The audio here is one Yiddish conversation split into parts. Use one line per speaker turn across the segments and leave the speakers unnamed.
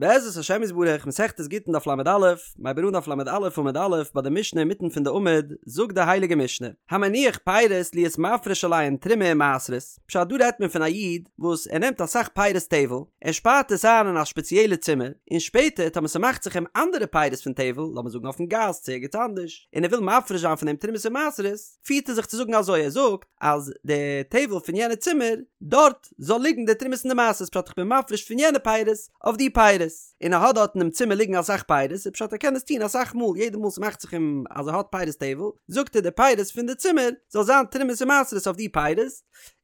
בעזרת השם יתברך, מסכת גיטין דף ל"א, מ'הייבט אן דף ל"א עמוד א', ביי די משנה אינמיטן פון די עמוד, זאגט די הייליגע משנה, המניח פירות להיות מפריש עליהן תרומה ומעשרות, פשט דא רעדט מען פון א איד וואס ער נעמט אסאך פירות טבל, ער שפארט עס איין אין א שפעציעלע צימער, און שפעטער טאמער ס'מאכט זיך אים אנדערע פירות פון טבל, לאמיר זאגן אויפן גאס צו ערגעץ אנדערש, און ער וויל מפריש זיין פון דעם תרומות און מעשרות, פירט ער זיך צו זאגן אזוי, ער זאגט אז די טבל פון יענע צימער, דארט זאל ליגן די תרומות און די מעשרות, פשט איך בין מפריש פון יענע פירות אויף די פירות, און ער האט דארט אינעם צימער ליגן אסאך פירות, איז פשט ער קען עס טון אסאך מאל, יעדע מאל ס'מאכט זיך אים אז ער האט פירות טבל, זאגט ער די פירות פון די צימער זאל זיין תרומות און מעשרות אויף די פירות,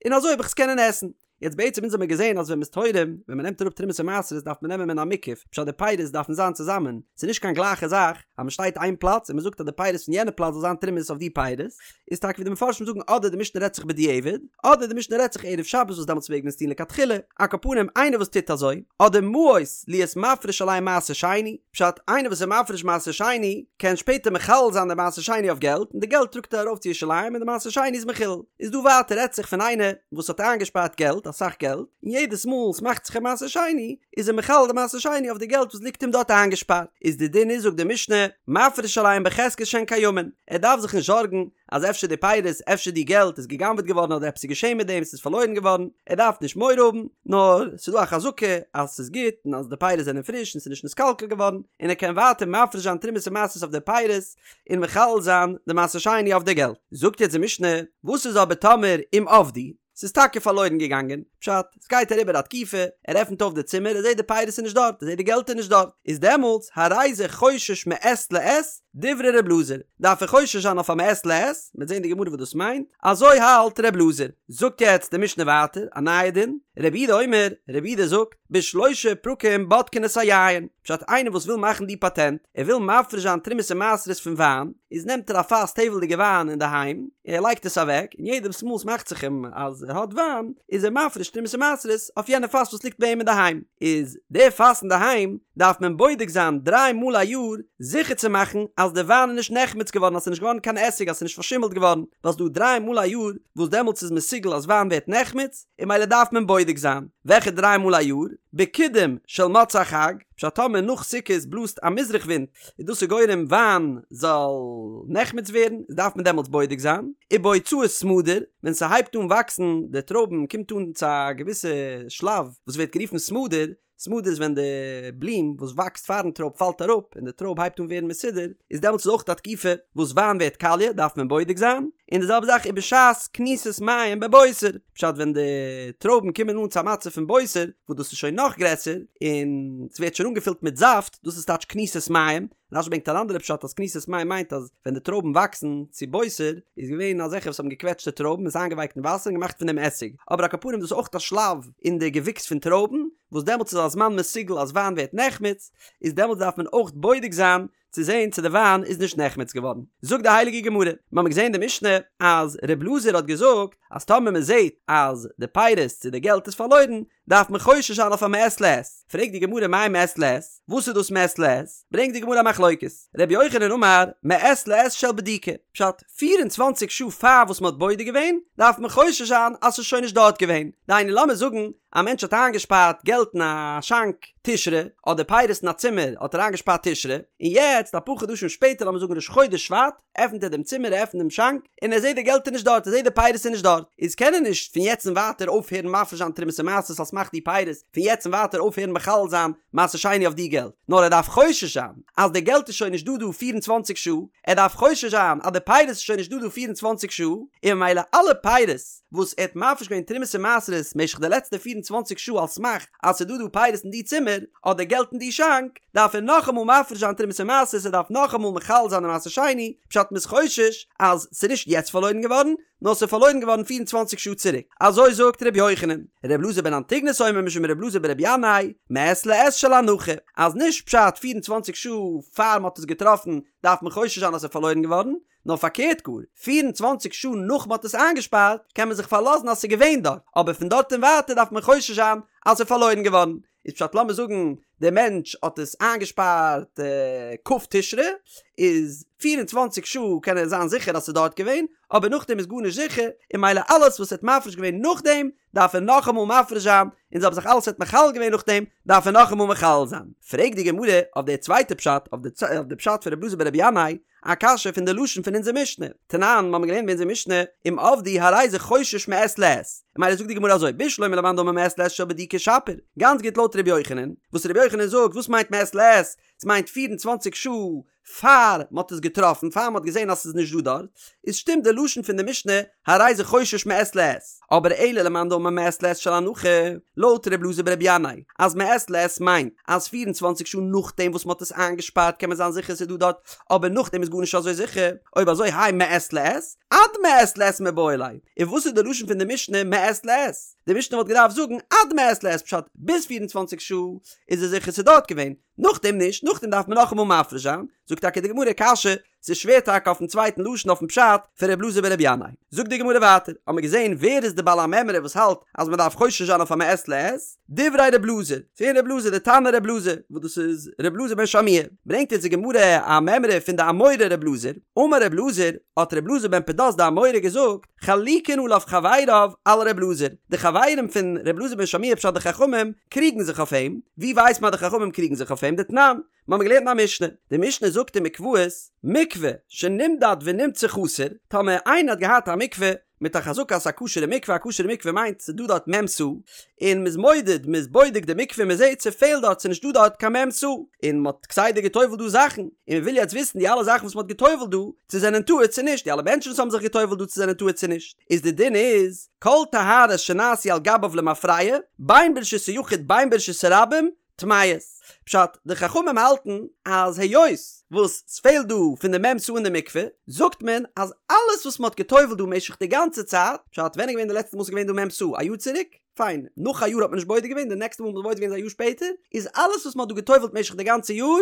און אזוי וועל איך עס קענען עסן. יעצט בעצם אונז האמיר געזען אז ווען מ'איז תורם, ווען מ'נעמט אראפ תרומות און מעשרות דארף מען נעמען מן המוקף, פשט די פירות דארפן זיין צוזאמען, ס'איז נישט קיין גלייכע זאך אז מ'שטייט איין פלאץ און מ'זאגט אז די פירות פון יענע פלאץ זאל זיין תרומות אויף די פירות, איז טאקע ווי די מפרשים זאגן אדער די משנה רעדט זיך בדיעבד, אדער די משנה רעדט זיך ערב שבת וואס דעמאלטס מעג מען עס טון לכתחילה, על כל פנים איינער וואס טוט אזוי, אדער מעות להיות מפריש עליהן מעשר שני, פשט איינער וואס איז מפריש מעשר שני קען שפעטער מחלל זיין די מעשר שני אויף געלט און די געלט טראגט ער ארויף צו ירושלים און די מעשר שני איז מחולל. איז דא ווייטער רעדט זיך פון איינער וואס האט איינגעשפארט געלט אסאך געלט און יעדעס מאל ס'מאכט זיך אים מעשר שני איז ער מחלל די מעשר שני אויף די געלט וואס ליגט אים דארט איינגעשפארט איז די דין איז זאגט די משנה מפריש עליהן בחזקת שהן קיימין ער דארף זיך נישט זארגן אז אפשר די פירות אפשר די געלט איז גע'גנב'עט געווארן אדער עפעס איז געשען מיט דעם ס'איז פארלוירן געווארן ער דארף נישט מורא האבן נאר ס'איז דא א חזקה אז ס'איז גוט און אז די פירות זענען פריש און ס'איז נישט נתקלקל געווארן און ער קען ווייטער מפריש זיין תרומות און מעשרות אויף די פירות און מחלל זיין די מעשר שני אויף די געלט. זאגט יעצט די משנה, וואס איז אבער טאמער אם אבדו, ס'איז טאקע פארלוירן געגאנגען, פשט, ס'גייט אריבער א תקופה, ער עפנט אויף די צימער, ער זעט די פירות איז נישט דארט, ער זעט די געלט איז נישט דארט, איז דעמאלטס הרי זה חושש מעת לעת, דברי ר' אלעזר, דארף ער חושש זיין אויף א מעת לעת, מ'וועט זען די גמרא וואס דאס מיינט, אזוי האלט ר' אלעזר. זאגט יעצט די משנה ווייטער, א נייע דין, רבי יהודה אומר, רבי יהודה זאגט, בשלושה פרקים בודקין את היין, פשט איינער וואס וויל מאכן די פאטענט, ער וויל מפריש זיין תרומות און מעשרות פון וויין, איז נעמט ער א פאס טבל'דיגע וויין אינדערהיים, און ער לייגט עס אוועק, און יעדעס מאל ס'מאכט זיך אים אז ער האט וויין, איז ער מפריש תרומות און מעשרות אויף יענע פאס וואס ליגט ביי אים אינדערהיים, איז די פאס אינדערהיים דארף מען בודק זיין דריי מאל א יאר, זיכער צו מאכן אז די וויין איז נישט נחמץ געווארן אז ס'איז נישט געווארן קיין עסיג אז ס'איז נישט פארשימלט געווארן, ווייל ס'דא דריי מאל א יאר וואס דעמאלטס איז מסוגל אז וויין ווערט נחמץ, און ממילא דארף מען בודק זיין וועלכע דריי מאל א יאר, בקידום של מוצאי חג, פשט טאמער נאך סוכות בלאזט א מזרח ווינט איז דאס איז גורם וויין זאל נחמץ ווערן, איז דארף מען דעמאלטס בודק זיין, ובהוצאת סמדר, ווען ס'הייבט אן וואקסן די טרויבן קומט אן צו א געוויסע שלב וואס ווערט גערופן סמדר, סמדר איז ווען די בלום וואס וואקסט פארן טרויב פאלט אראפ און די טרויב הייבט אן ווערן מסודר, איז דעמאלטס איז אויך א תקופה וואס וויין ווערט קאליע דארף מען בודק זיין, און די זעלבע זאך ובשעת כניסת מים בבוסר, פשט ווען די טרויבן קומען אן צו א מצב פון בוסר וואס דאס איז שוין נאך גרעסער און ס'ווערט שוין אנגעפילט מיט זאפט, דאס איז טייטש כניסת מים, רש"י ברענגט אן אנדערע פשט אז כניסת מים מיינט אז ווען די טרויבן וואקסן צו בוסר איז געווען אזעלכע וואס האבן געקוועטשט די טרויבן עס איינגעווייקט אין וואסער און געמאכט פון דעם עסיג, אבער על כל פנים דאס איז אויך א שלב אין די געוויקס פון טרויבן וואס דעמאלטס איז א זמן מסוגל אז וויין ווערט נחמץ, איז דעמאלטס דארף מען אויך בודק זיין צו זען צו די וויין איז נישט נחמץ געווארן. זאגט די הייליגע גמרא, מיר האבן געזען אין די משנה אז ר' אלעזר האט געזאגט אז טאמער מען זעט אז די פירות צו די געלט איז פארלוירן דארף מען חושש זיין אויף א מעת לעת, פרעגט די גמרא מאי מעת לעת, וואס איז דאס מעת לעת? ברענגט די גמרא א מחלוקת, רבי יוחנן אמר מעת לעת של בדיקה, פשט, פיר און צוואנציג שעה פאר וואס מען האט בודק געווען, דארף מען חושש זיין אז ס'איז שוין נישט דארט געווען, דהיינו לאמיר זאגן א מענטש האט איינגעשפארט געלט אין א שאנק תשרי, אדער פירות אין א צימער האט ער איינגעשפארט תשרי, און יעצט אפאר חדשים שפעטער לאמיר זאגן ראש חודש שבט, עפנט ער דעם צימער ער עפנט דעם שאנק און ער זעט די געלט איז נישט דארט ער זעט די פירות איז נישט דארט איז קען ער נישט פון יעצט און ווייטער אויפהערן מפריש זיין תרומות און מעשרות על סמך די פירות פון יעצט און ווייטער אויפהערן מחלל זיין מעשר שני אויף די געלט נאר ער דארף חושש זיין אז די געלט איז שוין נישט דא דא 24 שעה ער דארף חושש זיין אז די פירות איז שוין נישט דא דא 24 שעה און ממילא אלע פירות וואס ער האט מפריש געווען תרומות און מעשרות משך די לעצטע 24 שעה על סמך אז ס'איז דא דא פירות אין די צימער אדער געלט אין די שאנק דארף ער נאכאמאל מפריש זיין תרומות און מעשרות, ער דארף נאכאמאל מחלל זיין די מעשר שני, פשט מ'איז חושש אז ס'איז נישט יעצט פארלוירן געווארן, נאר ס'איז פארלוירן געווארן 24 שעה צוריק, אזוי זאגט ר' יוחנן. ר' אלעזר בן אנטיגנוס אומר משום ר' אלעזר בר' ינאי, מעת לעת של הנחה, אז נישט פשט 24 שעה פאר מ'האט עס געטראפן דארף מען חושש זיין אז ס'איז פארלוירן געווארן, נאר פארקערט גאר, 24 שעה נאך מ'האט עס איינגעשפארט קען מען זיך פארלאזן אז ס'איז געווען דארט, אבער פון דארט און ווייטער דארף מען חושש זיין אז ס'איז פארלוירן געווארן. איז פשט לאמיר זאגן דער מענטש האט עס איינגעשפארט כ' תשרי, איז 24 שעה קען ער זיין זיכער אז ס'איז דארט געווען, אבער נאכדעם איז גארנישט זיכער, און ממילא אלעס וואס ער האט מפריש געווען נאכדעם דארף ער נאכאמאל מפריש זיין, און זעלבע זאך אלעס ער האט מחלל געווען נאכדעם דארף ער נאכאמאל מחלל זיין. פרעגט די גמרא אויף די צווייטע פשט, אויף די פשט פון ר' אלעזר ברבי ינאי, א קשיא פון די לשון פון אונזער משנה, תנן, מ'האמיר געלערנט ביי אונזער משנה, אם אבדו הרי זה חושש מעת לעת. ממילא זאגט די גמרא אזוי, בשלמא למאן דאמר מעת לעת של בדיקה שפיר, גאנץ גוט לויט ר' יוחנן, וואס ר' יוחנן זאגט וואס מיינט מעת לעת, ס'מיינט 24 שעה פאר מ'האט עס געטראפן, פאר מ'האט געזען אז ס'איז נישט דא דארט, איז שטימט די לשון פון די משנה הרי זה חושש מעת לעת, אבער אלא למאן דאמר מעת לעת של הנחה, לויט ר' אלעזר ברבי ינאי, אז מעת לעת מיינט אז 24 שעה נאכדעם וואס מ'האט עס איינגעשפארט קען מען זיין זיכער ס'איז דא דארט, אבער נאכדעם איז גארנישט אזוי זיכער, אויב אזוי האי מעת לעת, עד מעת לעת מיבעי ליה, און וואס איז די לשון פון די משנה מעת לעת? די משנה וואלט געדארפט זאגן עד מעת לעת פשט ביז 24 שעה איז עס זיכער ס'איז דארט געווען, נאכדעם נישט, נאכדעם דארף מען נאכאמאל מפריש זיין, זאגט טאקע די גמרא קשיא, ס'איז שווער טאקע אויפן צווייטן לשון אויפן פשט פון ר' אלעזר ברבי ינאי. זאגט די גמרא ווייטער, האמיר געזען ווער איז די בעל המימרא וואס האלט אז מען דארף חושש זיין אויף א מעת לעת, דברי ר' אלעזר, ס'איז געווען ר' אלעזר די תנא ר' אלעזר, וואס דאס איז ר' אלעזר בן שמוע, ברענגט אונז די גמרא א מימרא פון די אמורא ר' אלעזר, אמר ר' אלעזר, האט ר' אלעזר בן פדת די אמורא געזאגט, חלוקין עליו חבריו על ר' אלעזר, די חברים פון ר' אלעזר בן שמוע פשט די חכמים קריגן זיך אויף אים, ווי ווייסט מען אז די חכמים קריגן זיך אויף אים? דתנן, מיר האבן געלערנט אין א משנה, די משנה זאגט אין מקוואות, מקווה שנמדד ונמצא חסר, טאמער איינער האט געהאט א מקווה מיט א חזקה אז ס'איז א כשר'ע מקווה, א כשר'ע מקווה מיינט ס'איז דא דארט מ' סאה, און מ'איז מודד, מ'איז בודק די מקווה און מ'זעט ס'פעלט דארט, ס'איז נישט דא דארט קיין מ' סאה, און מ'האט כסדר גע'טובל'ט דא זאכן, און מ'וויל יעצט וויסן די אלע זאכן וואס מ'האט גע'טובל'ט דא, צו זענען טהור צו נישט, די אלע מענטשן וואס האבן זיך גע'טובל'ט דא צו זענען טהור צו נישט, איז די דין איז, כל טהרות שנעשו על גביו למפרע, בין ברשות היחיד בין ברשות הרבים, טמאות. פשט, די חכמים האלטן אז היות וואס ס'פעלט דא פון די מ' סאה אין די מקווה, זאגט מען אז אלעס וואס מ'האט גע'טובל'ט דא משך די גאנצע צייט, פשט, ווען איז געווען די לעצטע מאל ס'איז געווען דא מ' סאה? א יאר צוריק? פיין, נאך א יאר האט מען נישט בודק געווען, די נעקסטע מאל מ'האט בודק געווען איז א יאר שפעטער, איז אלעס וואס מ'האט דא גע'טובל'ט משך די גאנצע יאר,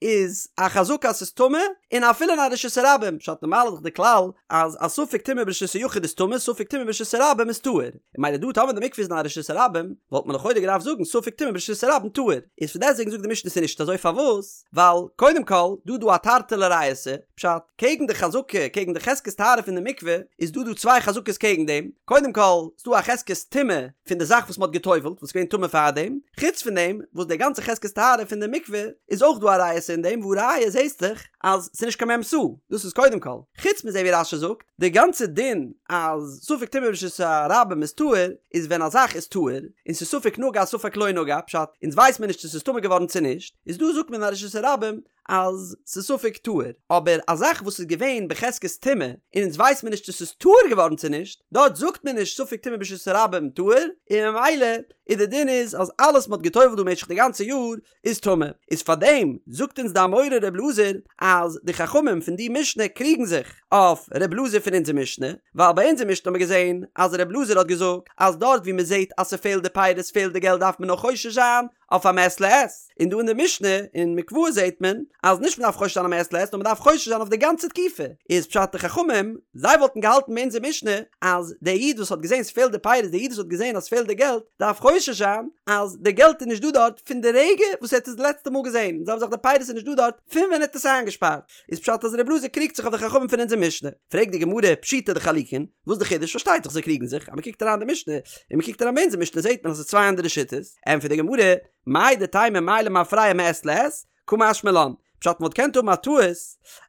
איז א חזקה אז ס'איז טמא, און אפילו אין א רשות הרבים, פשט נארמאל איז דאך די כלל אז א ספק טומאה ברשות היחיד איז טמא, ספק טומאה ברשות הרבים איז טהור, און ממילא דא טאמער די מקווה איז אין א רשות הרבים, וואלט מען לכאורה געדארפט זאגן ספק טומאה ברשות הרבים טהור, איז פון דעסטוועגן זאגט די משנה ס'איז נישט אזוי פארוואס? ווייל קודם כל דא דא א תרתי לריעותא, פשט, קעגן די חזקה, קעגן די חזקת טהרה פון די מקווה, איז דא דא צוויי חזקות קעגן דעם, קודם כל איז דא א חזקת טומאה פון די זאך וואס מ'האט גע'טובל'ט וואס איז געווען טמא פארדעם, חוץ פון דעם וואס די גאנצע חזקת טהרה פון די מקווה איז אויך דא א ריעותא אין דעם והא ראיה זעהסט דאך אז ס'איז נישט קיין מ' סאה, דאס איז קודם כל, חוץ מזה ווי רש"י זאגט, די גאנצע דין אז ספק טומאה ברשות הרבים איז טהור איז ווען א זאך איז טהור און ס'איז ספק נגע ספק לא נגע, פשט, אונז ווייס מיר נישט צו ס'איז טמא געווארן צו נישט, איז דא זאגט מען אין א רשות הרבים אז ס'איז ספק טהור, אבער א זאך וואס איז געווען בחזקת טומאה און אונז ווייס מיר נישט צו ס'איז טהור געווארן צו נישט, דארט זאגט מען נישט ספק טומאה ברשות הרבים טהור, און ממילא איז די דין איז אז אלעס מ'האט גע'טובל'ט דא משך די גאנצע יאר איז טמא, איז פארדעם זאגט אונז די אמורא ר' אלעזר אז די חכמים פון די משנה קריגן זיך אויף ר' אלעזר פון אונזער משנה, ווייל ביי אונזער משנה האט מען געזען אז ר' אלעזר האט געזאגט אז דארט ווי מ'זעט אז ס'פעלט די פירות פעלט די געלט דארף מען נאר חושש זיין אויף א מעת לעת, און דא אין די משנה אין מקוואות זעט מען אז נישט מ'דארף חושש זיין א מעת לעת נאר מ'דארף חושש זיין אויף די גאנצע תקופה, איז פשט די חכמים זיי וואלטן געהאלטן ביי אונזער משנה אז דער איד וואס האט געזען ס'פעלט די פירות דער איד וואס האט געזען אז ס'פעלט די געלט דארף חושש זיין אז די געלט איז נישט דא דארט פון די רגע וואס ער האט עס די לעצטע מאל געזען, און זעלבע זאך די פירות איז נישט דא דארט פון ווען ער האט עס איינגעשפארט, איז פשט אז ר' אלעזר קריגט זיך אויף די חכמים פון אונזער משנה, פרעגט די גמרא פשיטא דחלוקין, וואס איז די חידוש? פארשטייט זיך זיי קריגן זיך, אז מ'קוקט אריין די משנה און מ'קוקט אריין ביי אונזער משנה זעט מען אז ס'איז צוויי אנדערע שיטות, ענטפערט די גמרא, מהו דתימא מאי למפרע מעת לעת, קא משמע לן, פשט מ'וואלט געקענט האבן א טעות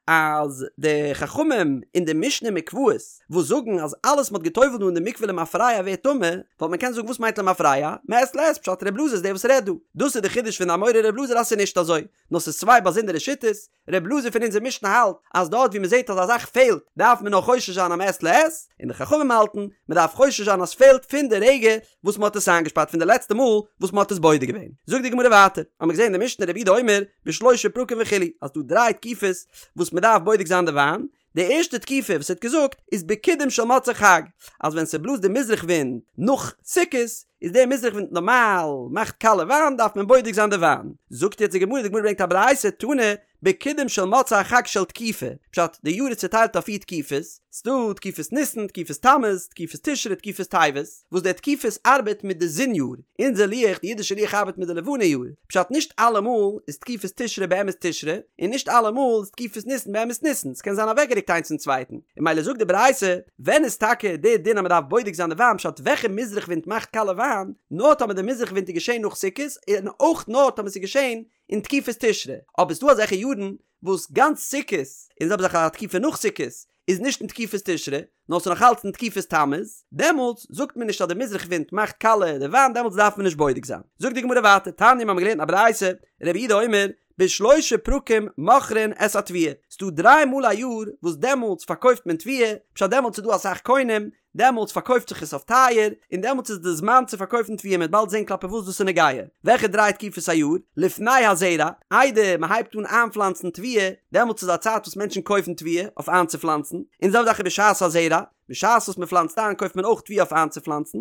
אז די חכמים אין די משנה מקוואות וואס זאגן אז אלעס מ'האט גע'טובל'ט דא אין די מקווה למפרע ווערט טמא, וואלט מען קענען זאגן וואס מיינט למפרע? מעת לעת, פשט ר' אלעזר איז דער וואס רעדט דא. דאס איז די חידוש פון די אמורא ר' אלעזר אז ס'איז נישט אזוי, נאר ס'איז צוויי באזונדערע שיטות, ר' אלעזר פון אונזער משנה האלט אז דארט ווי מ'זעט אז א זאך פעלט דארף מען נאר חושש זיין א מעת לעת, און די חכמים האלטן מ'דארף חושש זיין אז ס'פעלט פון די רגע וואס מ'האט עס איינגעשפארט פון די לעצטע מאל וואס מ'האט עס בודק געווען. זאגט די גמרא ווייטער, האמיר געזען אין די משנה רבי יהודה אומר בשלושה פרקים וכו' אז ס'דא דריי תקופות וואס מ'דארף בודק זיין די וויין, די ערשטע תקופה וואס ער האט געזאגט איז בקידום של מוצאי חג, אז ווען ס'בלאזט די מזרח ווינט נאך סוכות, איז דער מזרח ווינט נארמאל מאכט קאליע וויין דארף מען בודק זיין די וויין. זאגט יעצט די גמרא, די גמרא ברענגט א ברייתא, תנא, בקידום של מוצאי החג של תקופה, פשט, די יאר איז צוטיילט אויף פיר תקופות, ס'דא תקופת ניסן, תקופת תמוז, תקופת תשרי, תקופת טבת, וואס די תקופות ארבעט מיט די זון יאר, אונזער לוח, די אידישע לוח ארבעט מיט די לבנה יאר, פשט נישט אלעמאל איז תקופת תשרי באמת תשרי, און נישט אלעמאל איז תקופת ניסן באמת ניסן, ס'קען זיין אוועקגערוקט איינס פון צווייטן, און ממילא זאגט די ברייתא, ווען איז טאקע די דין אז מ'דארף בודק זיין די וויין פשט וועלכע מזרח ווינט מאכט קאלע וויין, נאר טאמער די מזרח ווינט איז געשען נאך סוכות, און אויך נאר טאמער ס'איז געשען אין תקופת תשרי, אבער ס'דא אזעלכע יארן וואס גאנץ סוכות, און זעלבע זאך א תקופה נאך סוכות, איז נישט אין תקופת תשרי, נאר ס'איז נאך אלץ אין תקופת תמוז, דעמאלטס זאגט מען נישט אז די מזרח ווינט מאכט קאלע די וויין, דעמאלטס דארף מען נישט בודק זיין. זאגט די גמרא ווייטער, תניא מיר האבן געלערנט א ברייתא, רבי יהודה אומר, בשלושה פרקים מוכרין את התבואה, ס'דא דריי מאל א יאר וואס דעמאלטס פארקויפט מען תבואה, פשט דעמאלטס איז דא אסאך קונים, דעמאלטס פארקויפט זיך עס אויף טייער, און דעמאלטס איז די זמן צו פארקויפן תבואה, מ'וועט באלד זען כלפי וואס דאס איז נוגע. וועלכע דריי תקופות א יאר? לפני הזרע, איידער מען הייבט אן איינפלאנצן תבואה, דעמאלטס איז א צייט וואס מענטשן קויפן תבואה אויף איינצופלאנצן, און די זעלבע זאך איז בשעת הזרע, בשעת וואס מען פלאנצט איין קויפט מען אויך תבואה אויף איינצופלאנצן,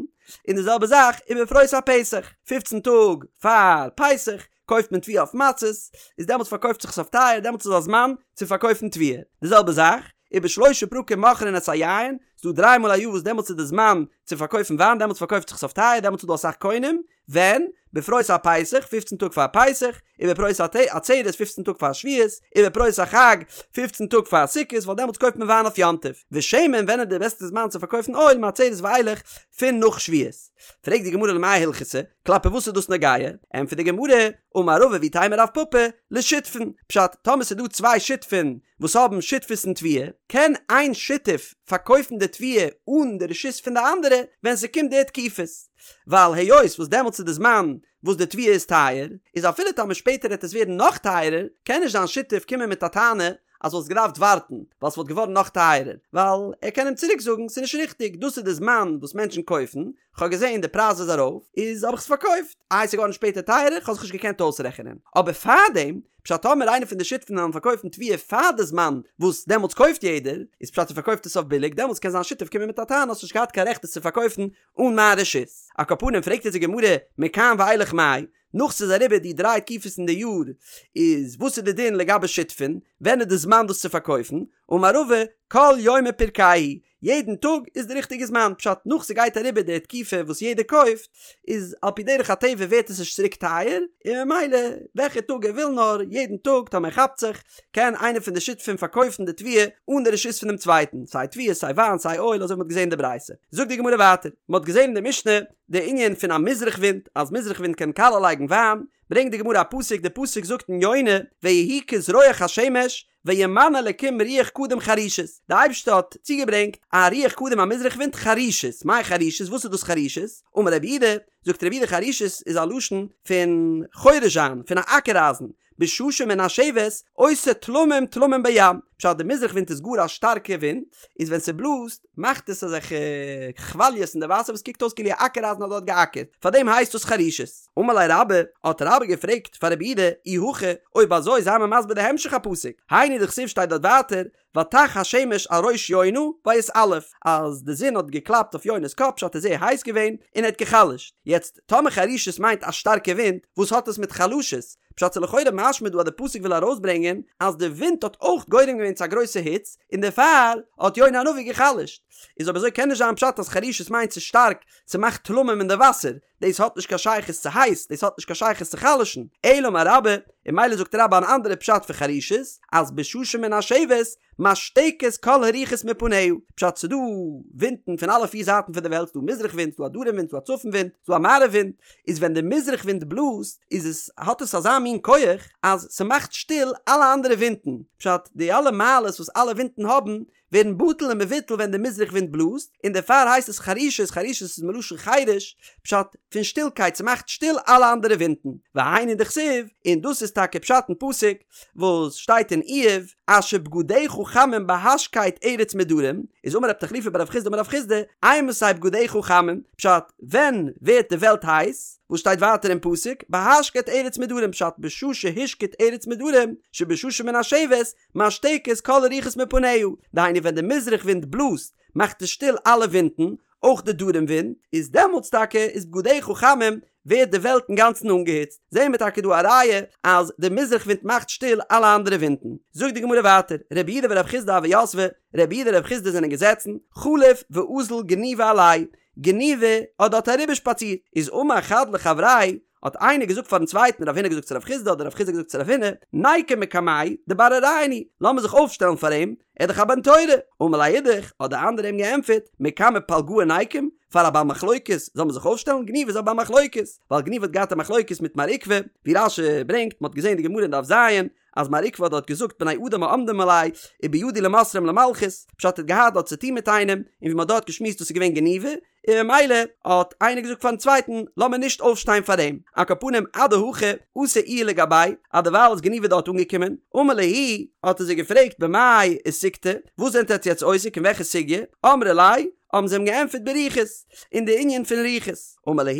און די זעלבע זאך ובפרוס הפסח, פופצן טאג פאר פסח קויפט מען תבואה אויף מצות, איז דעמאלטס פארקויפט זיך עס אויף טייער, דעמאלטס איז א זמן צו פארקויפן תבואה. די זעלבע זאך, ובשלושה פרקים מוכרין את היין, ס'דא דריי מאל א יאר וואס דעמאלטס איז די זמן צו פארקויפן וויין, דעמאלטס פארקויפט זיך עס אויף טייער, דעמאלטס איז דא אסאך קונים, ווען? בפרוס הפסח, פופצן טאג פאר פסח, ובפרוס העצרת, פופצן טאג פאר שבועות, ובפרוס החג, פופצן טאג פאר סוכות, ווייל דעמאלטס קויפט מען וויין אויף יום טוב. ושמן, ווען איז די בעסטע זמן צו פארקויפן אויל, מעצרת ואילך, פון נאך שבועות. פרעגט די גמרא למאי הלכתא, כלפי וואס איז דאס נוגע? ענטפערט די גמרא, אמר רבא ואיתימא רב פפא, לשותפין, פשט, טאמער ס'איז דא צוויי שותפין וואס האבן שותפות אין תבואה, קען איין שותף פארקויפן די תבואה אן די רשות פון די אנדערע ווען ס'קומט די תקופות, ווייל היות וואס דעמאלטס איז די זמן וואס די תבואה איז טייער, איז אפילו טאמער שפעטער העט עס ווערן נאך טייערער, קען נישט זיין שותף קומען מיט א טענה אז וואלסט געדארפט ווארטן ווייל ס'וואלט געווארן נאך טייערער, ווייל ער קען אים צוריק זאגן ס'איז נישט ריכטיג, דאס איז די זמן וואס מענטשן קויפן, כ'האב געזען די פרייז איז ארויף, איז האב איך עס פארקויפט, איי ס'איז געווארן שפעטער טייערער, כ'האב זיך נישט געקענט אויסרעכענען. אבער פארדעם, פשט טאמער איינער פון די שותפים וועלן פארקויפן תבואה פאר די זמן וואס דעמאלטס קויפט יעדער, איז פשט ער פארקויפט עס אויף ביליג, דעמאלטס קען זיין שותף קומען מיט א טענה האסט נישט געהאט קיין רעכט עס צו פארקויפן אן מיין רשות. על כל פנים פרעגט אונז די גמרא מכאן ואילך מאי, נאך ס'איז אריבער די דריי תקופות אין די יאר, איז וואס איז די דין לגבי שותפין, ווען איז די זמן דאס צו פארקויפן, אמר רבא, כל יומא פירקייהו, יעדן טאג איז די ריכטיגע זמן, פשט נאך ס'גייט אריבער די תקופה וואס יעדער קויפט, איז על פי דרך הטבע ווערט עס נישט צוריק טייער, און ממילא וועלכע טאג ער וויל נאר, יעדן טאג טאמער ער כאפט זיך, קען איינער פון די שותפים פארקויפן די תבואה אן די רשות פונעם צווייטן, סיי תבואה סיי וויין סיי אויל אזוי ווי מ'האט געזען אין די ברייתא. זאגט די גמרא ווייטער, מ'האט געזען אין די משנה די ענין פון א מזרח ווינט, אז מזרח ווינט קען קאלע לייגן וויין, ברענגט די גמרא א פסוק, די פסוק זאגט אין יונה, ויהי כזרוח השמש, וימן אלקים רוח קדים חרישית, די אייבערשטער האט צוגעברענגט א רוח קדים א מזרח ווינט חרישית, מאי חרישית וואס איז דאס חרישית? אמר רב יהודה, זאגט רב יהודה חרישית איז א לשון פון חורש זיין, פון א אקער אייזן, בשעה שמנשבת עושה תלמים תלמים בים, פשט די מזרח ווינט איז גאר א שטארקע ווינט, איז ווען ס'בלאזט מאכט עס אזעלכע כוואליעס אין די וואסער וואס קוקט אויס כאילו א אקער אייזן האט דארט געאקערט, פארדעם הייסט דאס חרישית. אמר ליה רבה, האט רבה געפרעגט פאר רב יהודה, אי הכי, אויב אזוי זיי מיר מסביר די המשך הפסוק, היינו דכתיב שטייט דארט ווייטער, ותך השמש על ראש יונה ויתעלף, אז די זון האט געקלאפט אויף יונה'ס קאפ פשט איז זייער הייס געווען און ער האט גע'חלש'ט, יעצט טאמער חרישית מיינט א שטארקע ווינט, וואס האט עס מיט חלשות? פשט איז לכאורה משמע דא אז די פסוק וויל ארויסברענגען אז די ווינט האט אויך גורם געווען צו א גרויסע היץ און דערפאר האט יונה הנביא גע'חלש'ט, איז אויב אזוי קען נישט זיין פשט אז חרישית מיינט ס'איז שטארק ס'מאכט תלמים אין די וואסער, דאס האט נישט קיין שייכות צו הייס, דאס האט נישט קיין שייכות צו חלש'ן, אלא אמר רבה, און ממילא זאגט רבה אן אנדערע פשט פון חרישית, אז בשעה שמנשבת, משתקת כל הרוחות מפניה, פשט ס'דא ווינטן פון אלע פיר זייטן פון די וועלט, ס'דא מזרח ווינט, ס'דא א דרום ווינט, ס'דא א צפון ווינט, ס'דא א מערב ווינט, איז ווען די מזרח ווינט בלאזט, איז עס, האט עס אזא מין כח, אז ס'מאכט שטיל אלע אנדערע ווינטן, פשט די אלע מעלות וואס אלע ווינטן האבן, ווערן בטל און מבוטל ווען די מזרח ווינט בלאזט, און דערפאר הייסט עס חרישית, חרישית איז מלשון חרש, פשט, פון שטילקייט, ס'מאכט שטיל אלע אנדערע ווינטן, והיינו דכתיב, און דאס איז טאקע פשט אין פסוק וואס שטייט אין איוב, אשר בגדיך חמים בהשקט ארץ מדרום, איז אמר רב תחליפא בר רב חסדא אמר רב חסדא, אימתי בגדיך חמים, פשט, ווען ווערט די וועלט הייס, וואס שטייט ווייטער אין פסוק, בהשקט ארץ מדרום, פשט, בשעה שהשקיט ארץ מדרום, שבשעה שמנשבת, משתקת כל הרוחות מפניה, דהיינו ווען די מזרח ווינט בלאזט מאכט עס שטיל אלע ווינטן, אויך די דרום ווינט, איז דעמאלטס טאקע איז בגדיך חמים, ווערט די וועלט אינגאנצן אנגעהיצט, זעהן מיר טאקע דא א ראיה אז די מזרח ווינט מאכט שטיל אלע אנדערע ווינטן. זאגט די גמרא ווייטער, רב יהודה ורב חסדא הוו יתבי, רב יהודה און רב חסדא זענען געזעצן, חליף ואזיל גניבא עלייהו, גניבא האט דארט אריבערשפאצירט, איז אמר חד לחבריה, האט איינער געזאגט פארן צווייטן, רב הונא געזאגט צו רב חסדא אדער רב חסדא געזאגט צו רב הונא, ניקום מקמיה דבר אוריין הוא, לאמיר זיך אויפשטעלן פאר אים, ער איז דאך א בן תורה. אמר ליה אידך, האט דער אנדערער אים געענטפערט, מקמי פלגאה ניקום, פאר א בעל מחלוקת זאל מען זיך אויפשטעלן, גניבא איז א בעל מחלוקת, ווייל גניבא האט געהאט א מחלוקת מיט מר עוקבא, ווי רש"י ברענגט, מען האט געזען די גמרא אין דף ז, אז מר עוקבא האט דארט געזאגט בני אדם העומדים עלי ובידי למסרם למלכות, פשט ער האט געהאט דארט צוטון מיט איינעם, און ווי מען האט דארט געשמועסט דאס איז געווען גניבא, און ממילא האט איינער געזאגט פארן צווייטן לאמיר נישט אויפשטיין פאר אים, על כל פנים אדהכי אתא איהו לגביה, אז דערווייל איז גניבא דארט אנגעקומען, אמר להו, האט ער זיי געפרעגט במאי עסיקתו, וואס זענט עטץ יעצט עוסק אין וועלכע סוגיא, אמרי ליה, האבן זיי אים געענטפערט ברוחות, אין די ענין פון רוחות, אמר להו,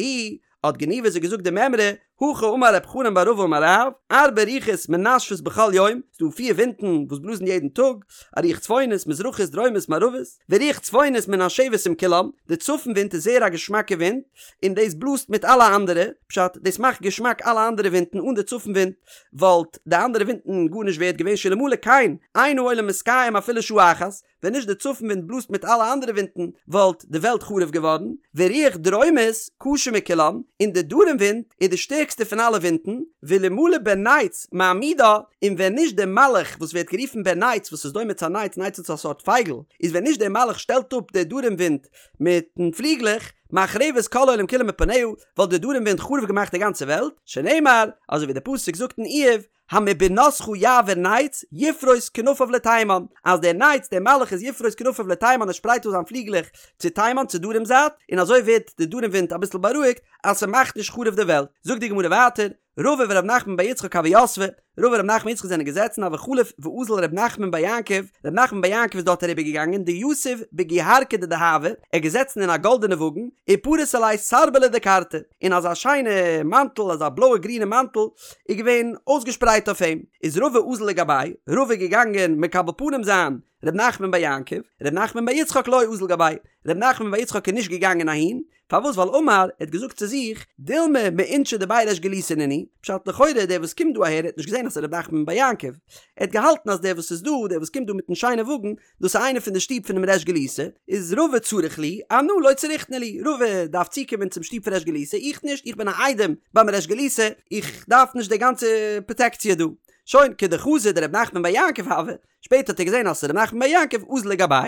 האט גניבא זיי געזאגט די מימרא, הכי אמר רב חנן בר רבא אמר רב, ארבע רוחות מנשבות בכל יום, ס'דא פיר ווינטן וואס בלאזן יעדן טאג, א רוח צפונית, מזרחית, דרומית, מערבית, ורוח צפונית מנשבת עם כולם, די צפון ווינט איז זייער א געשמאקע ווינט, און דאס בלאזט מיט אלע אנדערע, פשט, דאס מאכט געשמאק אלע אנדערע ווינטן, אן די צפון ווינט וואלט די אנדערע ווינטן גארנישט ווערד געווען, שאלמלא כן, אין העולם מתקיים אפילו שעה אחת, ווען נישט די צפון ווינט בלאזט מיט אלע אנדערע ווינטן וואלט די וועלט חרוב געווארן, ורוח דרומית קשה מכולם, און די דרום ווינט איז די שטערקסטע פון אלע ווינטן, ואלמלא בן נץ מעמידה, און ווען נישט דער מלאך וואס ווערט גערופן בן נץ וואס איז דומה צו א נץ, נץ איז א סארט פייגל, איז ווען נישט דער מלאך שטעלט אפ די דרום ווינט מיטן פליגלעך, מחרבת כל העולם כולו מפניה, וואלט די דרום ווינט חרוב געמאכט די גאנצע וועלט, שנאמר, אזוי ווי דער פסוק זאגט אין איוב, המבינתך יעביר נץ, יפרוס כנפיו לתימן, אז דער נץ, דער מלאך איז יפרוס כנפיו לתימן, ער שפרייט אויס זיין פליגלעך צו תימן, צו דרום זייט, און אזוי ווערט די דרום ווינט אביסל בארואיגט, אז ס'מאכט נישט חרוב די וועלט. זאגט די גמרא ווייטער, רבא ורב נחמן בר יצחק הוו יתבי, רבא און רב נחמן יצחק זענען געזעצן, הוה חליף ואזיל רב נחמן בר יעקב, רב נחמן בר יעקב איז דארט אריבער געגאנגען, דיתיב בגוהרקא דדהבא, ער איז געזעצן אין א גאלדענע וואגן, ופריס עליה סרבלא דכרתי, און אזא שיינע מאנטל, אזא בלויע גרינע מאנטל, איז געווען אויסגעשפרייט אויף אים, איז רבא אזל לגביה, רבא איז געגאנגען מקבל פנים זיין ר' נחמן בר יעקב, ר' נחמן בר יצחק לא אזל גביה, ר' נחמן בר יצחק איז נישט געגאנגען אהין, פארוואס ווייל אמר, ער האט געזאגט צו זיך, דילמא מאינשי דבי ריש גלותא נינהו, פשט לכאורה דער וואס קומט דא אהער האט נישט געזען אז ס'איז ר' נחמן בר יעקב, ער האט געהאלטן אז דער וואס איז דא, דער וואס קומט דא מיטן שיינע וואגן, דאס איז איינער פון די שטוב פונעם ריש גלותא, איז רבא צריך להו, אנא לא צריכנא להו, רבא דארף צוקומען צום שטוב פון ריש גלותא, איך נישט, איך בין א איידעם ביים ריש גלותא, איך דארף נישט די גאנצע פראטעקציע דא. שוין, כדחזא דרב נחמן בר יעקב הוה, שפעטער האט ער געזען אז ס'איז ר' נחמן בר יעקב, אזל לגביה,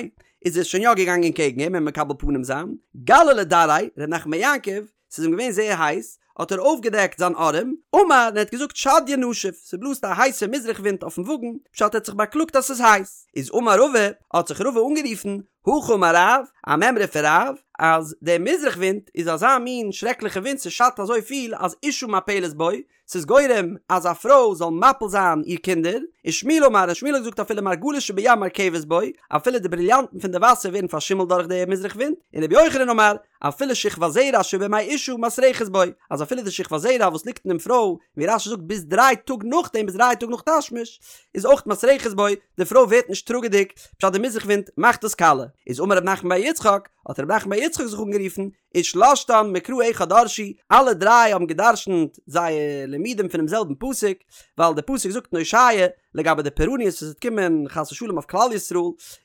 איז ער שוין יא געגאנגען קעגן אים אים מקבל פנים זיין, גלי לדרעיה, ר' נחמן בר יעקב, ס'איז אים געווען זייער הייס, האט ער אויפגעדעקט זיין ארעם, אמר, און ער האט געזאגט שדיא נשיף, ס'בלאזט א הייסע מזרח ווינט אויפן וואגן, פשט ער האט זיך באקלאגט אז ס'איז הייס. איז אמר רבא, האט זיך רבא אנגערופן, הכי אמר רב, א מימרא פון רב, אז דער מזרח ווינט איז אזא מין שרעקליכע ווינט ס'שאדט אזוי פיל אז אשה מפלת בו, ס'איז גורם אז א פרוי זאל מפיל זיין איר קינדער, ושמואל אמר, און שמואל האט געזאגט אפילו מרגלית שבים מרקבת בו, אפילו די בריליאנטן פון די וואסער ווערן פארשימלט דורך די מזרח ווינט, און רבי יוחנן אמר, אפילו שכבת זרע שבמעי אשה מסרחת בו, אז אפילו די שכבת זרע וואס ליגט אינעם פרוי, ווי רש"י זאגט ביז דריי טאג נאכדעם ביז דריי טאג נאך תשמיש, איז אויך מסרחת בו, די פרוי ווערט נישט טראגעדיג, פשט די מזרח ווינט מאכט דאס קאלע. איז אמר רב נחמן בר יצחק, האט רב נחמן בר יצחק זיך אנגערופן, ושלשתן מקרא אחד דרשו, אלע דריי האבן גע'דרש'נט זייער לימודים פונעם זעלבן פסוק, ווייל דער פסוק זאגט אין הושע לגבי די פורעניות וואס וועט קומען חס ושלום אויף כלל ישראל,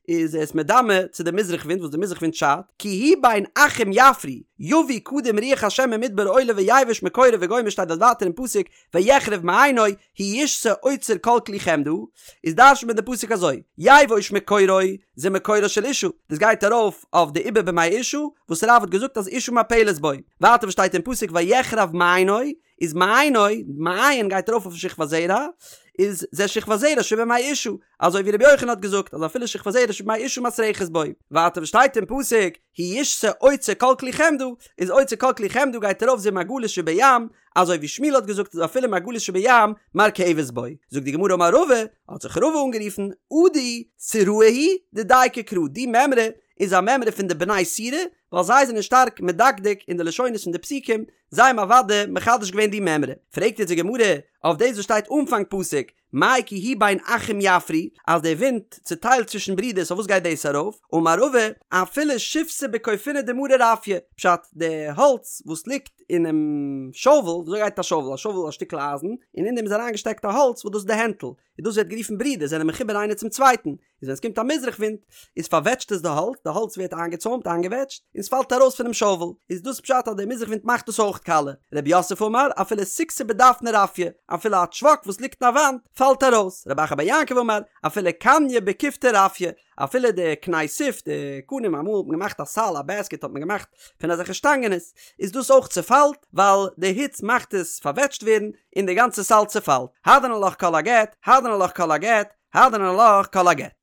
איז עס מדמה צו די מזרח ווינט וואס די מזרח ווינט שאדט, כי הוא בין אחים יפרי, יביא קדים רוח השם ממדבר עולה ויבש מקורו וגומר שטייט דארט ווייטער אין פסוק ויחרב מעיינו, הוא ישסה אוצר כל כלי חמדה, איז דרש'נט מען די פסוק אזוי, יבוש מקורו, זה מקורה של אשה, דאס גייט ארויף אויף די עובר במעי אשה, וואס רב האט געזאגט אז אשה מפלת בו. ווייטער וואס שטייט אין פסוק ויחרב מעיינו, איז מעיינו, מעיין גייט ארויף אויף שכבת זרע, איז זה שכבת זרע שבמעי אשה, אזוי ווי רבי יוחנן האט געזאגט אז אפילו שכבת זרע שבמעי אשה מסרחת בו. ווייטער וואס שטייט אין פסוק הוא ישסה אוצר כל כלי חמדה, איז אוצר כל כלי חמדה גייט ארויף זה מרגלית שבים, אזוי ווי שמואל האט געזאגט אז אפילו מרגלית שבים מרקבת בו. זאגט די גמרא אמר רבא, האט זיך רבא אנגערופן, עדי סוראי היא דדייקי קרא, די מימרא איז א מימרא פון די בני סורא, ווייל זיי זענען שטארק מדקדק אין די לשונות פון די פסוקים, זיי האבן אוודאי מחדש געווען די מימרא. פרעגט יעצט די גמרא אויף דאס וואס שטייט אנפאנג פסוק, מאי כי הוא בין אחים יפרי, אז דער ווינט צוטיילט צווישן ברידערס אויף וואס גייט דאס ארויף? אמר רבא, אפילו שיבתא בכופיני דמרא רפיא, פשט, די האלץ וואס ליגט. אינעם שאוול, וויאזוי גייט א שאוול? א שאוול איז א שטיקל אייזן, און אין דעם איז אריינגעשטעקט א האלץ וואס דאס איז די הענטל, און דאס ווערט גערופן ברידער, זענען מחובר איינער צום צווייטן, איז ווען עס קומט א מזרח ווינט, איז פארוועטשט עס די האלץ, די האלץ ווערט איינגעצוימט, איינגעוועטשט, און עס פאלט ארויס פונעם שאוול, איז דאס פשט אז דער מזרח ווינט מאכט דאס אויך קאלע. רב יוסף אמר, אפילו סיכתא בדפנא רפיא, אפילו א טשוואק וואס ליגט אין א וואנט, פאלט ארויס. רב אחא בר יעקב אמר, אפילו קניא בכופתא רפיא, אפילו די קני סוף, די קנים, אמאל האט מען געמאכט א סל, א בעסקעט האט מען געמאכט פון אזעלכע שטאנגענעס, איז דאס אויך צעפאלט, ווייל די היץ מאכט עס פארוועטשט ווערן, און די גאנצע סל צעפאלט. הדרן עלך כל הגט, הדרן עלך כל הגט, הדרן עלך כל הגט.